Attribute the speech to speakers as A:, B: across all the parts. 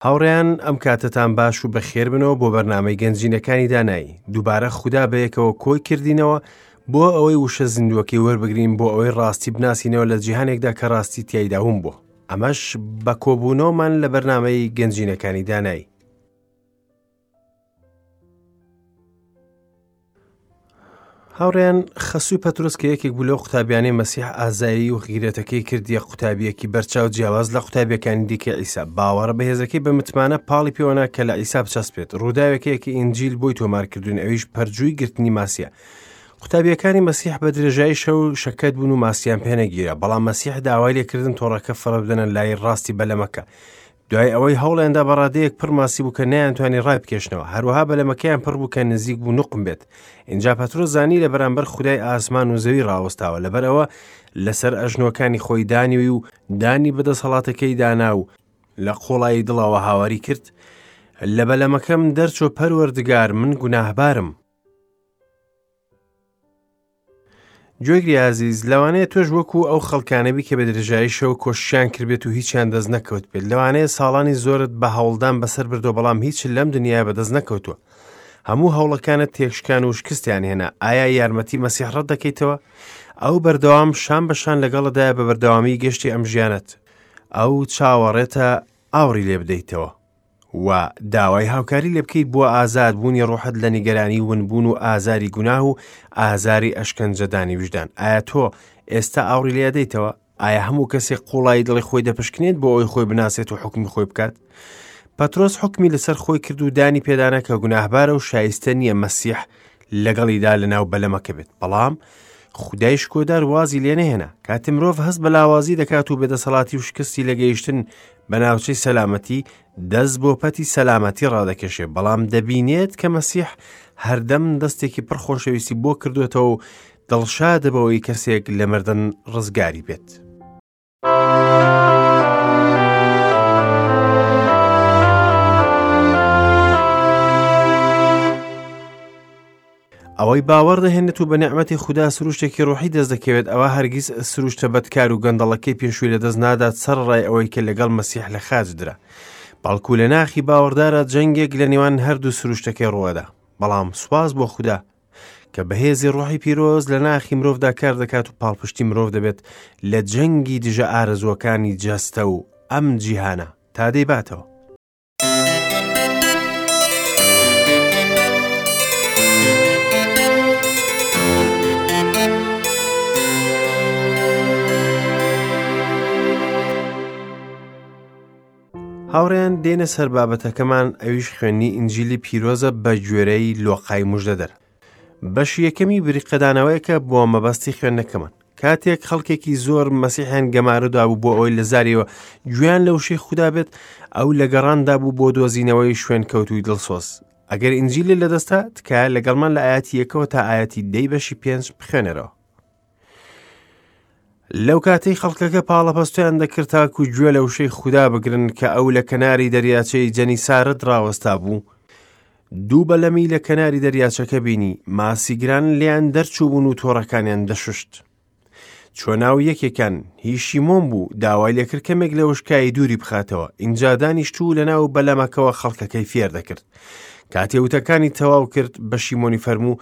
A: هاوڕێیان ئەم کاتەتان باش و بەخێربنەوە بۆ بەرنامەی گەنجینەکانی دانایی. دووبارە خودا بەیەکەوە کۆی کردینەوە بۆ ئەوەی وشە زیندووەکەی وەربگرین بۆ ئەوەی ڕاستی بناسینەوە لە جیهانێکدا کە ڕاستی تیایدا ون بووە. ئەمەش بە کۆبوونەوەمان لە بەرنامەی گەنجینەکانی دانایی. هاوڕێیان خەسووی پەترۆس کە یەکێک بوو لەو قوتابیانەی مەسیح ئازایی و غیرەتەکەی کردیە قوتابیەکی بەرچاو جیاواز لە قوتابیەکانی دیکە عیسا باوەڕە بەهێزەکەی بە متمانە پاڵی پێوەنا کە لە عیسا بچەسپێت ڕووداوێکەیەکی ئینجیل بۆی تۆمارکردوون ئەویش پەرجووی گرتنی ماسیە قوتابیەکانی مەسیح بە درێژایی شەو شەکەت بوون و ماسیان پێنەگیرا بەڵام مەسیح داوای لێکردن تۆڕەکە فڕە بدەنە لای ڕاستی بەلەمەکە دوای ئەوەی هەوڵیاندا بە ڕادەیەک پڕ ماسی بوو کە نەیانتوانی ڕایبکێشنەوە، هەروەها بەلەمەکەیان پڕ بوو کە نزیک بوو نوقم بێت. ئینجا پەترۆس زانی لە بەرامبەر خودای ئاسمان و زەوی ڕاوەستاوە، لەبەر ئەوە لەسەر ئەژنۆکانی خۆی دانیوی و دانی بە دەسەڵاتەکەی دانا و لە قوڵایی دڵەوە هاواری کرد، لە بەلەمەکەم دەرچۆ پەروەردگار من گوناهبارم. گوێگری ئازیز لەوانەیە تۆش وەکو ئەو خەڵکانەبی کە بە درێژایی شەو کۆششیان کردبێت و هیچیان دەست نەکەوت بێت لەوانەیە ساڵانی زۆرت بە هەوڵدان بەسەر بردووە بەڵام هیچ لەم دنیای بەدەست نەکەوتووە هەموو هەوڵەکانت تێکشکان و شکستیان هێنا ئایا یارمەتی مەسیح ڕەت دەکەیتەوە ئەو بەردەوام شان بە شان لەگەڵدایە بە بەردەوامی گەشتی ئەم ژیانت ئەو چاوەڕێتە ئاوڕی لێ بدەیتەوە و داوای هاوکاری لێ بکەیت بۆ ئازاد بوونی ڕۆحت لە نیگەرانی ونبوون و ئازاری گوناه و ئازاری ئەشکەنجەدانی ویژدان. ئایا تۆ ئێستا ئاوڕی لێ ئەدەیتەوە؟ ئایا هەموو کەسێک قوڵایی دڵی خۆی دەپشکنێت بۆ ئەوەی خۆی بناسێت و حوکمی خۆی بکات؟ پەترۆس حوکمی لەسەر خۆی کرد و دانی پێدانا کە گوناهبارە و شایستە نییە مەسیح لەگەڵیدا لەناو بەلەمەکە بێت. بەڵام خودای شکۆدار وازی لێ نەهێنا. کاتێ مرۆڤ هەست بە لاوازی دەکات و بێدەسەڵاتی و شکستی لە گەیشتن بە ناوچەی سەلامەتی، دەست بۆ پەتی سەلامەتی ڕادەکێشێ، بەڵام دەبینێت کە مەسیح هەردەم دەستێکی پڕ خۆشەویستی بۆ کردوێتەوە و دڵشادە بەوەی کەسێک لە مردن ڕزگاری بێت. ئەوەی باوەڕ دەهێنێت و بە نیعمەتی خودا سروشتێکی ڕۆحی دەست دەکەوێت ئەوە هەرگیز سروشتە بەدکار و گەندەڵەکەی پێشووی لەدەست نادات سەرەڕای ئەوەی کە لەگەڵ مەسیح لە خاچ درا بەڵکو لە ناخی باوەڕدارە جەنگێک لە نێوان هەردوو سروشتەکەی ڕووەدا بەڵام سوپاس بۆ خودا کە بەهێزی ڕۆحی پیرۆز لە ناخی مرۆڤدا کار دەکات و پاڵپشتی مرۆڤ دەبێت لە جەنگی دژە ئارەزووەکانی جەستە و ئەم جیهانە تا دەیباتەوە. هاوڕێیان دێنە سەر بابەتەکەمان ئەویش خوێندنی ئینجیلی پیرۆزە بە گوێرەی لۆقای مژدەدەر بەشی یەکەمی بریقەدانەوەیەکە بۆ مەبەستی خوێندنەکەمان کاتێک خەڵکێکی زۆر مەسیحیان گەمارۆ دابوو بۆ ئەوەی لە زاریەوە گوێیان لە وشەی خودا بێت ئەو لە گەڕاندا بوو بۆ دۆزینەوەی شوێنکەوتووی دڵسۆز ئەگەر ئینجیلی لەدەستە تکایە لەگەڵمان لە ئاەتی یەکەوە تا ئاەتی دەی بەشی پێنج بخوێنەرەوە لەو کاتەی خەڵکەکە پاڵەپەستۆیان دەکرد تاکو گوێ لە وشەی خودا بگرن کە ئەو لە کەناری دەریاچەی جەنیسارت ڕاوەستا بوو دوو بەلەمی لە کەناری دەریاچەکە بینی، ماسیگران لێیان دەرچووبوون و تۆڕەکانیان دەشوشت. چووە ناو یەکێکیان، هی شیمۆن بوو، داوای لێکرد کەمێک لە وشکایی دووری بخاتەوە، ئینجا دانیشت و لەناو بەلەمەکەوە خەڵکەکەی فێر دەکرد. کاتێ وتەکانی تەواو کرد، بە شیمۆنی فەرموو،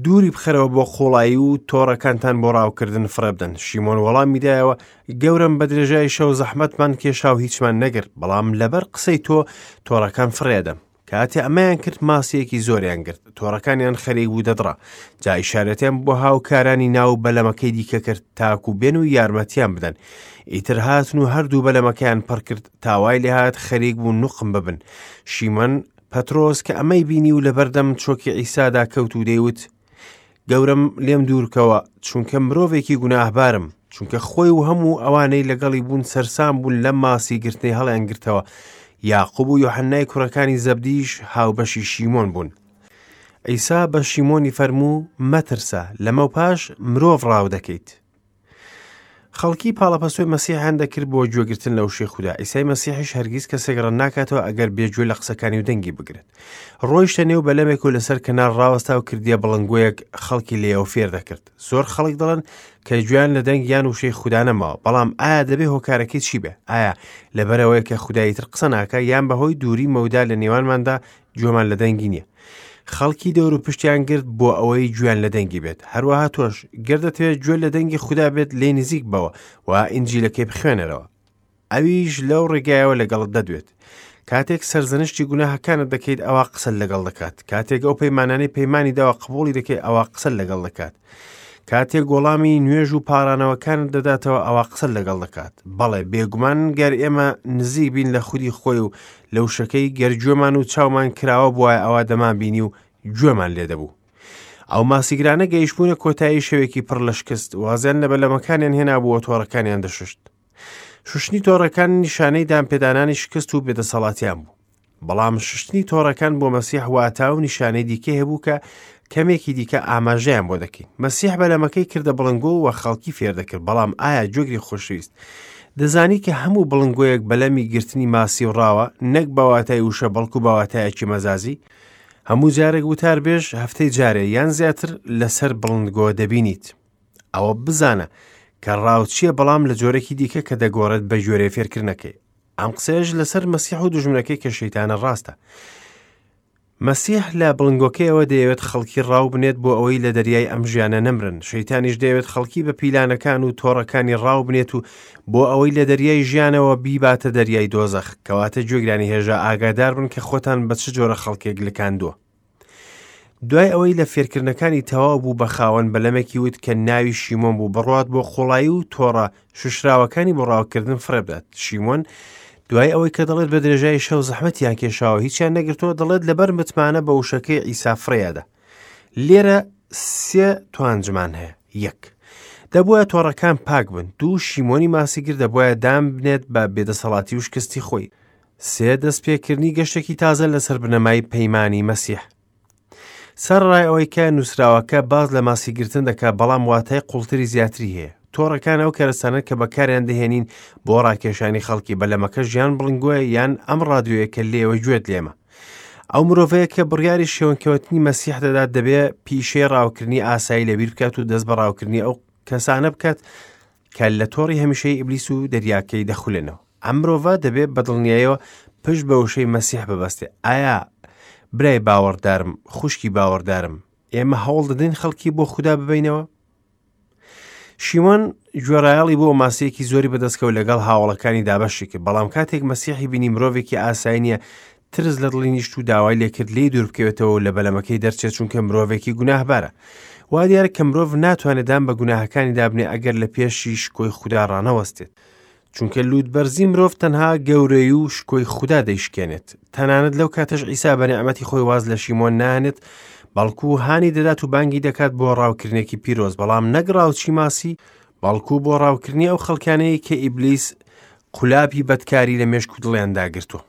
A: دووری بخەرەوە بۆ قوڵایی و تۆڕەکانتان بۆ ڕاوکردن فڕێ بدەن. شیمۆن وەڵامی دایەوە، گەورەم بە درێژای شەو زەحمەتمان کێشا و هیچمان نەگرت، بەڵام لەبەر قسەی تۆ تۆڕەکان فڕێدەم. کاتێ ئەمەیان کرد ماسییەکی زۆریان گرت، تۆڕەکانیان خەریک بوو دەدڕا، جا ئیشارەتیان بۆ هاوکارانی ناو بەلەمەکەی دیکە کرد تاکو بێن و یارمەتیان بدەن. ئیتر هاتن و هەردوو بەلەمەکەیان پڕ کرد تا وای لێهات خەریک بوو نوقم ببن. شیمۆن پەترۆس کە ئەمەی بینی و لەبەردەم چۆکی عیسادا کەوت و دەیوت، گەورەم لێم دوورکەوە، چونکە مرۆڤێکی گوناهبارم. چونکە خۆی و هەموو ئەوانەی لەگەڵی بوون سەرسام بوون لەم ماسی گرتنەی هەڵیانگرتەوە. یاقوب و یۆحەنای کوڕەکانی زەبدیش هاوبەشی شیمۆن بوون. عیسا بە شیمۆنی فەرموو، مەترسە، لەمەوپاش مرۆڤ ڕاو دەکەیت. خەڵکی پاڵەپەستۆی مەسیحیان دەکرد بۆ گوێگرتن لە وشەی خودا. عیسای مەسیحیش هەرگیز کەسێک ڕەت ناکاتەوە ئەگەر بێ گوێ لە قسەکانی و دەنگی بگرێت. ڕۆیشتە نێو بەلەمێک و لەسەر کەنار ڕاوەستا و کردیە بڵنگۆیەک خەڵکی لێیەوە فێر دەکرد. زۆر خەڵک دەڵێن کە گوێیان لە دەنگ یان وشەی خودا نەماوە، بەڵام ئایا دەبێ هۆکارەکەی چی بێ؟ ئایا لەبەرئەوەیە کە خودا ئیتر قسە ناکا یان بەهۆی دووری مەودا لە نێوانماندا گوێمان لە دەنگی نییە؟ خەڵکی دەور و پشتیان گرت بۆ ئەوەی گوێیان لە دەنگی بێت. هەروەها تۆش گەر دەتەوێت گوێ لە دەنگی خودا بێت لێی نزیک بەوە و ئینجیلەکەی بخوێنەرەوە. ئەویش لەو ڕێگایەوە لەگەڵت دەدوێت. کاتێک سەرزەنشتی گوناهەکانت دەکەیت ئەوا قسەت لەگەڵ دەکات. کاتێک ئەو پەیمانانەی پەیمانی داوە قبوڵی دەکەیت ئەوا قسەت لەگەڵ دەکات. کاتێک وەڵامی نوێژ و پاڕانەوەکانت دەداتەوە ئەوا قسەت لەگەڵ دەکات. بەڵێ بێگومان گەر ئێمە نزیک بین لە خودی خۆی و لە وشەکەی گەر گوێمان و چاومان کراوە بوایە ئەوا دەمانبینی و گوێمان لێ دەبوو. ئەو ماسیگرانە گەیشتبوونە کۆتایی شەوێکی پڕ لە شکست، وازیان لە بەلەمەکانیان هێنابوو و تۆڕەکانیان دەشوشت. شوشتنی تۆڕەکان نیشانەی دانپێدانانی شکست و بێدەسەڵاتیان بوو. بەڵام شوشتنی تۆڕەکان بۆ مەسیح واتا و نیشانەی دیکەی هەبوو کە کەمێکی دیکە ئاماژەیان بۆ دەکەین. مەسیح بەلەمەکەی کردە بڵنگۆ و خەڵکی فێر دەکرد، بەڵام ئایا گوێگری خۆشەویست دەزانی کە هەموو بڵنگۆیەک بەلەمی گرتنی ماسی و ڕاوە، نەک بە واتای وشە بەڵکو بە واتایەکی مەزازی؟ هەموو جارێک وتاربێژ هەفتەی جارێ یان زیاتر لەسەر بڵندگۆ دەبینیت. ئەوە بزانە کە ڕاوچییە بەڵام لە جۆرێکی دیکە کە دەگۆڕێت بە گوێرەی فێرکردنەکەی. ئەم قسەیەش لەسەر مەسیح و دوژمنەکەی کە شەیتانە ڕاستە. مەسیح لە بڵنگۆکەیەوە دەیەوێت خەڵکی ڕاو بنێت بۆ ئەوەی لە دەریای ئەم ژیانە نەمرن. شەیتانیش دەیەوێت خەڵکی بە پیلانەکان و تۆڕەکانی ڕاو بنێت و بۆ ئەوەی لە دەریای ژیانەوە بیباتە دەریای دۆزەخ. کەواتە گوێگرانی هێژا ئاگادار بن کە خۆتان بە چ جۆرە خەڵکێک لکاندووە. دوای ئەوەی لە فێرکردنەکانی تەواو بوو بە خاوەن بەلەمێکی وت کە ناوی شیمۆن بوو بڕوات بۆ قوڵایی و تۆڕە شوشراوەکانی بۆ ڕاوکردن فڕێبدات شیمۆن دوای ئەوەی کە دەڵێت بە درێژایی شەو زەحمەتیان کێشاوە هیچیان نەگرتووە دەڵێت لەبەر متمانە بە وشەکەی عیسا فڕێیادا لێرە سێ توانجمان هەیە یەک دەبووە تۆڕەکان پاک بن دوو شیمۆنی ماسیگر دەبواە دام بنێت بە بێدەسەڵاتی و شکستی خۆی سێ دەستپێکردنی گەشتێکی تازە لەسەر بنەمای پەیمانی مەسیح. سەرەڕای ئەوەی کە نووسراوەکە باس لە ماسیگرتن دەکات، بەڵام واتای قوڵتری زیاتری هەیە. تۆڕەکان ئەو کەرەستانەن کە بەکاریان دەهێنین بۆ ڕاکێشانی خەڵکی، بەلەمەکەش یان بڵنگۆیە یان ئەم ڕادیۆیە کە لێوە گوێت لێمە. ئەو مرۆڤەیە کە بڕیاری شێونکەوتنی مەسیح دەدات دەبێ پیشەی ڕاوکردنی ئاسایی لەبیر بکات و دەست بە ڕاوکردنی ئەو کەسانە بکات کە لە تۆڕی هەمیشەی ئیبلیس و دەریاکەی دەخولێنەوە. ئەم مرۆڤە دەبێ بە دڵنیایەوە پشت بە وشەی مەسیح ببەستێ. ئایا برای باوەڕدارم، خوشکی باوەڕدارم، ئێمە هەوڵ دەدەین خەڵکی بۆ خودا ببەینەوە؟ شیمۆن گوێڕایەڵی بۆ ماسیەکی زۆری بەدەستکەوت لەگەڵ هاوڵەکانی دابەشی کرد، بەڵام کاتێک مەسیحی بینی مرۆڤێکی ئاسایی نییە، ترس لە دڵی نیشت و داوای لێکرد لێی دوور بکەوێتەوە و لە بەلەمەکەی دەرچێت چونکە مرۆڤێکی گوناهبارە. وا دیارە کە مرۆڤ ناتوانێت دان بە گوناهەکانی دابنێ ئەگەر لە پێشی شکۆی خودا ڕانەوەستێت. چونکە لووتبەرزی مرۆڤ تەنها گەورەی و شکۆی خودا دەیشکێنێت. تەنانەت لەو کاتەش عیسا بە نیعمەتی خۆی واز لە شیمۆن ناهێنێت، بەڵکو هانی دەدات و بانگی دەکات بۆ ڕاوکردنێکی پیرۆز، بەڵام نەک ڕاوچی ماسی، بەڵکو بۆ ڕاوکردنی ئەو خەڵکانەی کە ئیبلیس قولابی بەدکاری لە مێشک و دڵیاندا گرتووە.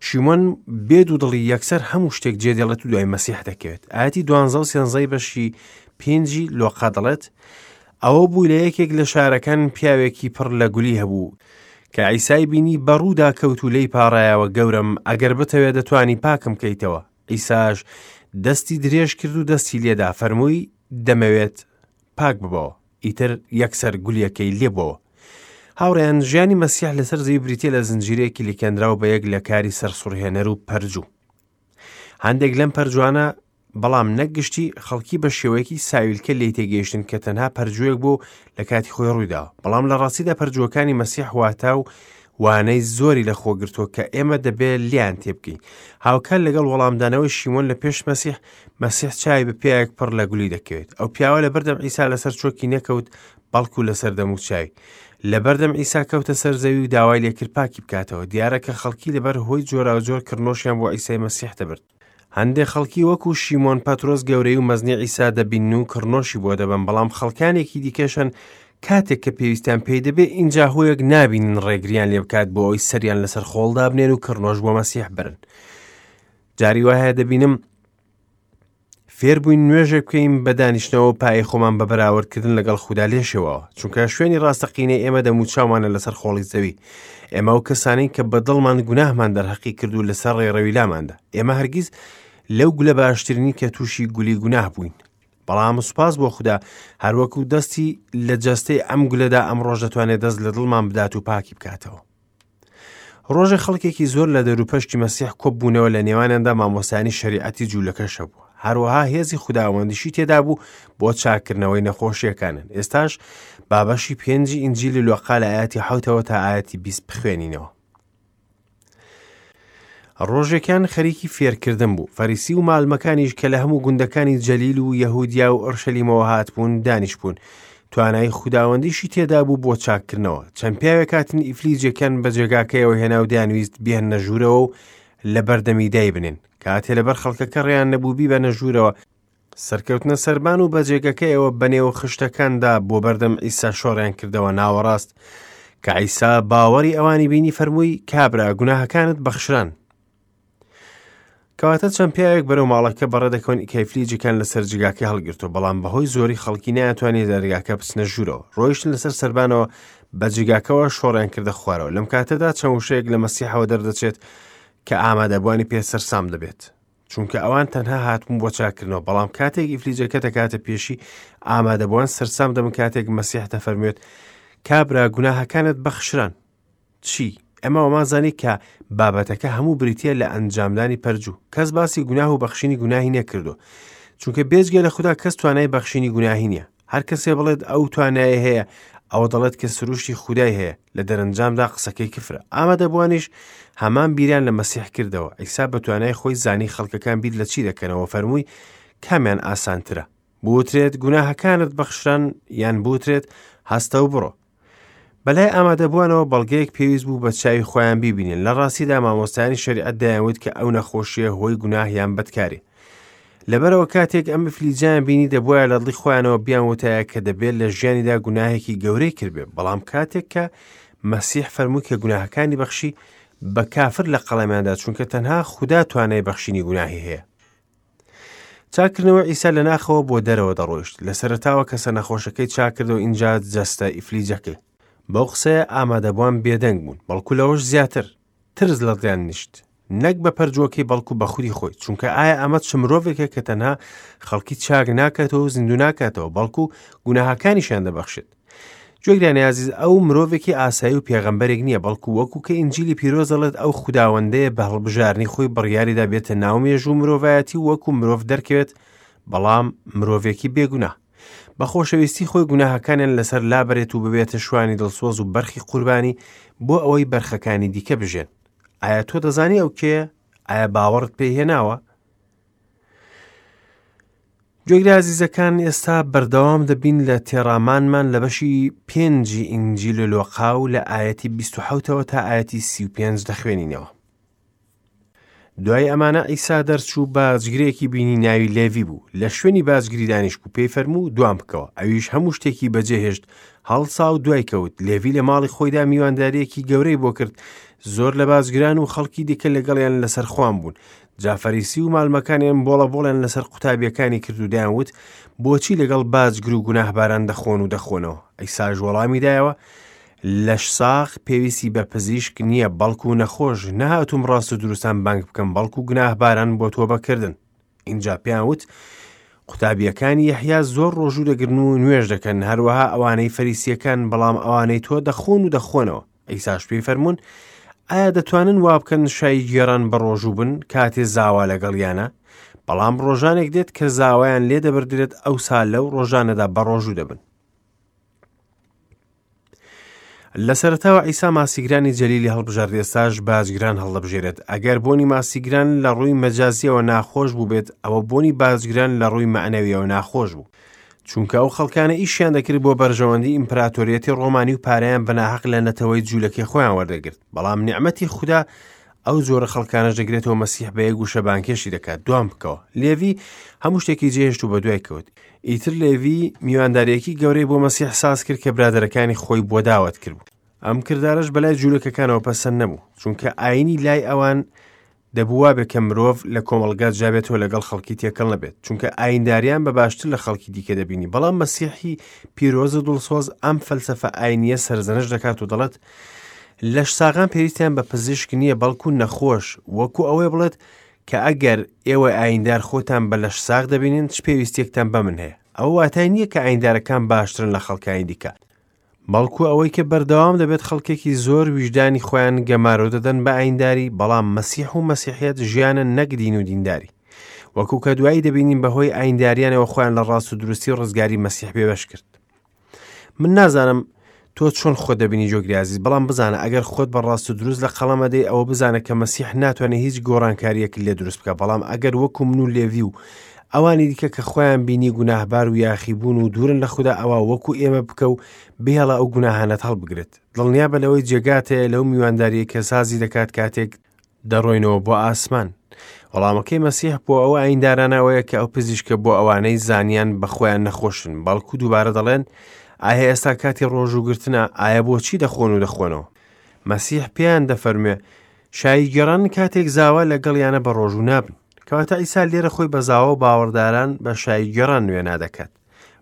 A: شیمۆن بێ دوودڵی یەکسەر هەموو شتێک جێدێڵێت و دوای مەسیح دەکەوێت. ئاەتی دوانزە و سێنزەی بەشی پێنجی لۆقا دەڵێت ئەوە بوو لە یەکێک لە شارەکان پیاوێکی پڕ لە گولی هەبوو کە عیسای بینی بەڕوودا کەوت و لێی پاڕایەوە گەورەم ئەگەر بتەوێت دەتوانی پاکم کەیتەوە عیساش دەستی درێژ کرد و دەستی لێدا فەرمووی دەمەوێت پاک ببەوە ئیتر یەکسەر گولیەکەی لێبووەوە. هاوڕێیان، ژیانی مەسیح لەسەر زەوی بریتیە لە زنجیرەیەکی لکێنراو بە یەک لە کاری سەرسوڕهێنەر و پەرجوو. هەندێک لەم پەرجوانە بەڵام نەک گشتی خەڵکی بە شێوەیەکی ساویلکە لێی تێگەیشتن کە تەنها پەرجوویەک بوو لە کاتی خۆی ڕوویداوە بەڵام لە ڕاستیدا پەرجووەکانی مەسیح واتا و وانەی زۆری لەخۆگرتووە کە ئێمە دەبێ لێیان تێبگەین. هاوکات لەگەڵ وەڵامدانەوەی شیمۆن لە پێش مەسیح، مەسیح چاوی بە پیاوێک پڕ لە گولی دەکەوێت. ئەو پیاوە لەبەردەم عیسا لەسەر چۆکی نەکەوت، بەڵکو لەسەر دەموچاوی. لەبەردەم عیسا کەوتە سەر زەوی و داوای لێکرد پاکی بکاتەوە. دیارە کە خەڵکی لەبەر هۆی جۆراوجۆر کڕنۆشیان بۆ عیسای مەسیح دەبرد. هەندێک خەڵکی وەکو شیمۆن پەترۆس گەورەی و مەزنی عیسا دەبینن و کڕنۆشی بۆ دەبەن، بەڵام خەڵکانێکی دیکەش هەن کاتێک کە پێویستیان پێی دەبێ ئینجا هۆیەک نابینن ڕێگریان لێ بکات بۆ ئەوەی سەریان لەسەر خۆڵ دابنێن و کڕنۆش بۆ مەسیح برن. جاری وایە دەبینم فێربووین نوێژێک بکەین بە دانیشتنەوە و پایەی خۆمان بە بەراوردکردن لەگەڵ خودا لێشێواوە، چونکە شوێنی ڕاستەقینەی ئێمە دەموچاومانە لەسەر خۆڵی زەوی. ئێمە ئەو کەسانەین کە بە دڵمان گوناهمان دەرهەقی کرد و لەسەر ڕێڕەوی لاماندا. ئێمە هەرگیز لەو گولە باشترین کە تووشی گولی گوناه بووین. بەڵام سوپاس بۆ خودا هەروەکو دەستی لە جەستەی ئەم گولەدا ئەمڕۆش دەتوانێت دەست لە دڵمان بدات و پاکی بکاتەوە. ڕۆژێ خەڵکێکی زۆر لە دەوروپەشتی مەسیح کۆببوونەوە لە نێوانیاندا مامۆستایانی شەریعەتی جوولەکەش هەبوو هەروەها هێزی خوداوەندیشی تێدا بوو بۆ چاکردنەوەی نەخۆشیەکانن ئێستاش بابەشی پێنجی ئینجیلی لۆقا لە ئاەتی حوتەوە تا ئاەتی 20 بخوێنینەوە ڕۆژێکیان خەریکی فێرکردن بوو فەریسی و مالمەکانیش کە لە هەموو گوندەکانی جەلیل و یەهودیا و ئۆرشەلیمەوە هاتبوون دانیشتبوون توانای خوداوەندیشی تێدا بوو بۆ چاککردنەوە چەند پیاوێک هاتن ئیفلیجێکیان بە جێگاکەیەوە هێنا و دەیانویست بیهێننە ژوورەوە و لە بەردەمی دایبنێن کاتێ لەبەر خەڵکەکە ڕێیان نەبوو بیبەنە ژوورەوە سەرکەوتنە سەربان و بە جێگەکەیەوە بەنێو خشتەکاندا بۆ بەردەم عیسا شۆڕیان کردەوە ناوەڕاست کە عیسا باوەڕی ئەوانی بینی فەرمووی کابرا گوناهەکانت بەخشران کەواتە چەند پیاوێک بەرەو ماڵەکە بەڕێ دەکەون کە ئیفلیجەکان لەسەر جێگاکەی هەڵگرتووە بەڵام بەهۆی زۆری خەڵکی نەیانتوانی دەرگاکە بچنە ژوورەوە ڕۆیشتن لەسەر سەربانەوە بە جێگاکەوە شۆڕیان کردە خوارەوە لەم کاتەدا چەند وشەیەک لە مەسیحەوە دەردەچێت کە ئامادەبووانی پێ سەرسام دەبێت چونکە ئەوان تەنها هاتبوون بۆ چاکردنەوە بەڵام کاتێک ئیفلیجەکە دەکاتە پێشی ئامادەبووان سەرسام دەبن کاتێک مەسیح دەفەرموێت کابرا گوناهەکانت بەخشران چی؟ ئەمە وامان زانی کە بابەتەکە هەموو بریتییە لە ئەنجامدانی پەرجوو. کەس باسی گوناه و بەخشینی گوناهی نەکردووە. چونکە بێجگە لە خودا کەس توانای بەخشینی گوناهی نییە. هەر کەسێ بڵێت ئەو توانایە هەیە، ئەوە دەڵێت کە سروشتی خودای هەیە، لە دەرەنجامدا قسەکەی کفرە. ئامادەبووانیش هەمان بیریان لە مەسیح کردەوە. عیسا بە توانای خۆی زانی خەڵکەکان بیر لە چی دەکەنەوە، فەرمووی کامیان ئاسانترە؟ بوترێت گوناهەکانت بەخشران یان بوترێت هەستە و بڕۆ. بەلای ئامادەبووانەوە بەڵگەیەک پێویست بوو بە چاوی خۆیان بیبینن لە ڕاستیدا مامۆستایانی شەریعەت دەیانوت کە ئەو نەخۆشیە هۆی گوناه یان بەدکاری لەبەرەوە کاتێک ئەم ئیفلیجیان بینی دەبواە لە دڵی خۆیانەوە بیان وتایە کە دەبێت لە ژیانیدا گوناهێکی گەورەی کردبێ بەڵام کاتێک کە مەسیح فەرمووی کە گوناهەکانی بەخشی بە کافر لە قەڵەمیاندا چونکە تەنها خودا توانای بەخشینی گوناهی هەیە چاکردنەوەی عیسا لە ناخەوە بۆ دەرەوە دەڕۆیشت لە سەرەتاوە کەسە نەخۆشەکەی چاکردەوە ئینجا جەستە ئیفلیجەکەی بەو قسەیە ئامادەبووان بێدەنگ بوون بەڵکو لەوەش زیاتر ترس لە دڵیان نیشت نەک بە پەرجوەکەی بەڵکو بە خودی خۆی چونکە ئایا ئەمە چ مرۆڤێکە کە تەنها خەڵکی چاک ناکاتەوە و زیندوو ناکاتەوە بەڵکو گوناهەکانیشیان دەبەخشێت گوێگرانی ئازیز ئەو مرۆڤێکی ئاسایی و پێغەمبەرێک نییە بەڵکو وەکو کە ئینجیلی پیرۆز دەڵێت ئەو خوداوەندەیە بە هەڵبژارنی خۆی بڕیاریدا بێتە ناو مێژوو مرۆڤایەتی و وەکو مرۆڤ دەرکەوێت بەڵام مرۆڤێکی بێگوناه بە خۆشەویستی خۆی گوناهەکانیان لەسەر لابەرێت و ببێتە شوانی دڵسۆز و بەرخی قوربانی بۆ ئەوەی بەرخەکانی دیکە بژێن ئایا تۆ دەزانی ئەو کێیە ئایا باوەڕت پێی هێناوە گوێگرە ئازیزەکان ئێستا بەردەوام دەبین لە تێڕامانمان لە بەشی پێنجی ئینجیل لۆقا و لە ئایەتی 1970ەوە تا ئایەتی 35 دەخوێنینەوە. دوای ئەمانە عیسا دەرچوو باجگرێکی بینی ناوی لێڤی بوو لە شوێنی باجگری دانیشت بوو پێی فەرموو دوام بکەوە ئەویش هەموو شتێکی بەجێهێشت هەڵسا و دوای کەوت لێڤی لە ماڵی خۆیدا میوانداریەکی گەورەی بۆ کرد زۆر لە باجگران و خەڵکی دیکە لەگەڵیان لەسەر خوان بوون جا فەریسی و مالمەکانیان بۆڵە بۆڵیان لەسەر قوتابیەکانی کرد و دەیان وت بۆچی لەگەڵ باجگر و گوناهباران دەخۆن و دەخۆنەوە عیساش وەڵامی دایەوە لەش ساغ پێویستی بە پزیشک نییە بەڵکو نەخۆش نەهاتووم ڕاست و دروستان بانگ بکەم بەڵکو گوناهباران بۆ تۆبەکردن ئینجا پێیان وت قوتابیەکانی یەحیا زۆر ڕۆژوو دەگرن و نوێژ دەکەن هەروەها ئەوانەی فەریسیەکان بەڵام ئەوانەی تۆ دەخۆن و دەخۆنەوە عیساش پێی فەرموون، ئایا دەتوانن وا بکەن شایی گێڕان بە ڕۆژوو بن کاتێ زاوا لەگەڵیانە؟ بەڵام ڕۆژانێک دێت کە زاوایان لێ دەبردرێت ئەوسا لەو ڕۆژانەدا بە ڕۆژوو دەبن. لە سەرەتاوە عیسا ماسیگرانی جەلیلی هەڵبژارد ئێستاش باجگران هەڵدەبژێرێت ئەگەر بۆنی ماسیگران لە ڕووی مەجازیەوە ناخۆش بووبێت ئەوە بۆنی باجگران لە ڕووی مەعنەویەوە ناخۆش بوو چونکە ئەو خەڵکانە ئیشیان دەکرد بۆ بەرژەوەندی ئیمپراتۆریەتی ڕۆمانی و پارەیان بە ناحەق لە نەتەوەی جوولەکەی خۆیان وەردەگرت بەڵام نیعمەتی خودا ئەو جۆرە خەڵکانەش دەگرێتەوە مەسیح بە یەک وشە بانکێشی دەکات دوام بکەوە لێڤی هەموو شتێکی جێهێشت و بەدوای کەوت ئیتر لێڤی میوانداریەکی گەورەی بۆ مەسیح ساز کرد کە برادەرەکانی خۆی بۆ داوەت کرد بوو ئەم کردارەش بەلای جوولەکەکانەوە پەسەند نەبوو چونکە ئاینی لای ئەوان دەبوو وابێ کە مرۆڤ لە کۆمەڵگا جیابێتەوە لەگەڵ خەڵکی تێکەڵ نەبێت چونکە ئاینداریان بە باشتر لە خەڵکی دیکە دەبینی بەڵام مەسیحی پیرۆز و دڵسۆز ئەم فەلسەفە ئاینیە سەرزەنش دەکات و دەڵێت لەش ساغان پێویستیان بە پزیشک نییە بەڵکو نەخۆش وەکو ئەوەی بڵێت کە ئەگەر ئێوە ئایندار خۆتان بە لەش ساغ دەبینن چ پێویستیەکتان بە من هەیە ئەوە واتای نییە کە ئایندارەکان باشترن لە خەڵکانی دیکە بەڵکو ئەوەی کە بەردەوام دەبێت خەڵکێکی زۆر ویژدانی خۆیان گەمارۆ دەدەن بە ئاینداری، بەڵام مەسیح و مەسیحیەت ژیانە نەک دین و دینداری. وەکو کە دوایی دەبینین بەهۆی ئاینداریانەوە خۆیان لە ڕاست و دروستی و ڕزگاری مەسیح بێبەش کرد. من نازانم تۆ چۆن خۆت دەبینی جۆگری ئازیز، بەڵام بزانە ئەگەر خۆت بە ڕاست و دروست لە قەڵەم ئەدەی ئەوە بزانە کە مەسیح ناتوانێت هیچ گۆڕانکاریەک لێ دروست بکە، بەڵام ئەگەر وەکو من و لێڤی و ئەوانی دیکە کە خۆیان بینی گوناهبار و یاخیبوون و دوورن لە خودا ئەوا وەکو ئێمە بکە و بهێڵە ئەو گوناهانەت هەڵبگرێت دڵنیابە لەوەی جێگات هەیە لەو میوانداریەی کە سازی دەکات کاتێک دەڕۆینەوە بۆ ئاسمان وەڵامەکەی مەسیح بۆ ئەو ئایندارانە ئەوەیە کە ئەو پزیشکە بۆ ئەوانەی زانیان بە خۆیان نەخۆشن بەڵکو دووبارە دەڵێن ئایا ئێستا کاتی ڕۆژووگرتنە ئایا بۆچی دەخۆن و دەخۆنەوە مەسیح پێیان دەفەرموێ شاییگێڕان کاتێک زاوا لەگەڵیانە بە ڕۆژوو نابن. کەواتە عیسا لێرە خۆی بە زاوا و باوەڕداران بە شاییگێڕان وێنا دەکات.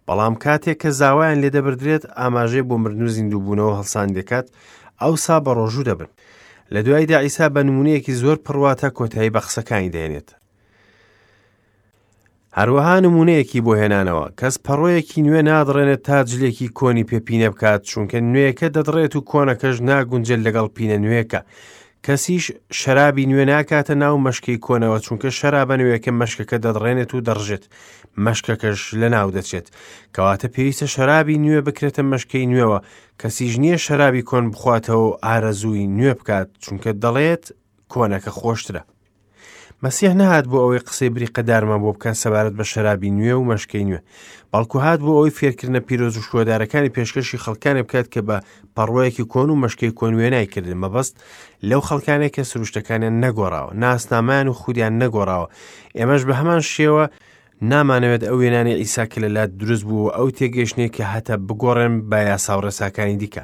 A: بەڵام کاتێک کە زاوایان لێ دەبردرێت ئاماژەی بۆ مردن و زیندووبوونەوە هەڵسان دەکات، ئەوسا بە ڕۆژوو دەبن. لە دواییدا عیسا بە نموونەیەکی زۆر پڕواتا کۆتایی بە قسەکانی دەهێنێت. هەروەها نموونەیەکی بۆ هێنانەوە، کەس پەڕۆیەکی نوێ نادڕێنێت تا جلێکی کۆنی پێ پینە بکات، چونکە نوێیەکە دەدڕێت و کۆنەکەش ناگونجێت لەگەڵ پینە نوێیەکە. کەسیش شەرابی نوێ ناکاتە ناو مەشکەی کۆنەوە، چونکە شەرابە نوێیەکە مەشکەکە دەدڕێنێت و دەڕژێت، مەشکەکەش لەناو دەچێت. کەواتە پێویستە شەرابی نوێ بکرێتە مەشکەی نوێوە، کەسیش نییە شەرابی کۆن بخواتەوە و ئارەزووی نوێ بکات، چونکە دەڵێت کۆنەکە خۆشترە. مەسیح نەهات بۆ ئەوەی قسەی بریقەدارمان بۆ بکات سەبارەت بە شەرابی نوێ و مەشکەی نوێ بەڵکو هات بۆ ئەوەی فێرکردنە پیرۆز و شکۆدارەکانی پێشکەشی خەڵکانێ بکات کە بە پەڕۆیەکی کۆن و مەشکەی کۆن وێنای کردن مەبەست لەو خەڵکانێک کە سروشتەکانیان نەگۆڕاوە ناسنامان و خودیان نەگۆڕاوە ئێمەش بە هەمان شێوە نامانەوێت ئەو وێنانەی عیسا کە لە لات دروست بوو و ئەو تێگەیشتنەی کە هەتە بگۆڕێن بە یاسا و ڕێساکانی دیکە.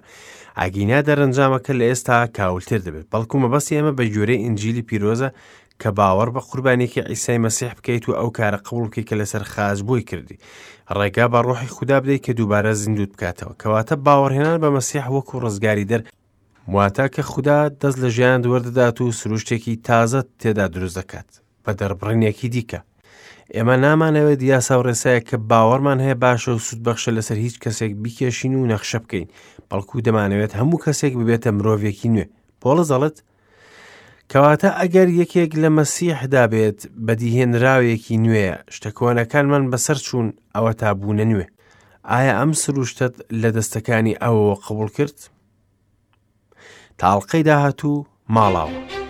A: ئەگینا دەرەنجامەکە لە ئێستا کاولتر دەبێت. بەڵکو مەبەستی ئێمە بە گوێرەی ئینجیلی پیرۆزە کە باوەڕ بە قوربانیەکەی عیسای مەسیح بکەیت و ئەو کارە قبوڵ بکەیت کە لەسەر خاچ بۆی کردی. ڕێگا بە ڕۆحی خودا بدەیت کە دووبارە زیندووت بکاتەوە. کەواتە باوەڕهێنان بە مەسیح وەکو ڕزگاریدەر واتە کە خودا دەست لە ژیانت وەردەدات و سروشتێکی تازەت تێدا دروست دەکات. بە دەربڕینێکی دیکە ئێمە نامانەوێت یاسا و ڕێسایەک کە باوەڕمان هەیە باشە و سوودبەخشە لەسەر هیچ کەسێک بیکێشین و نەخشە بکەین بەڵکو دەمانەوێت هەموو کەسێک ببێتە مرۆڤێکی نوێ پۆڵس دەڵێت کەواتە ئەگەر یەکێک لە مەسیحدا بێت بەدیهێنراوێکی نوێیە شتە کۆنەکانمان بەسەر چوون ئەوە تا بوونە نوێ ئایا ئەم سروشتەت لە دەستەکانی ئەوەوە قبول کرد؟ تا ئەڵقەی داهاتوو ماڵاوە.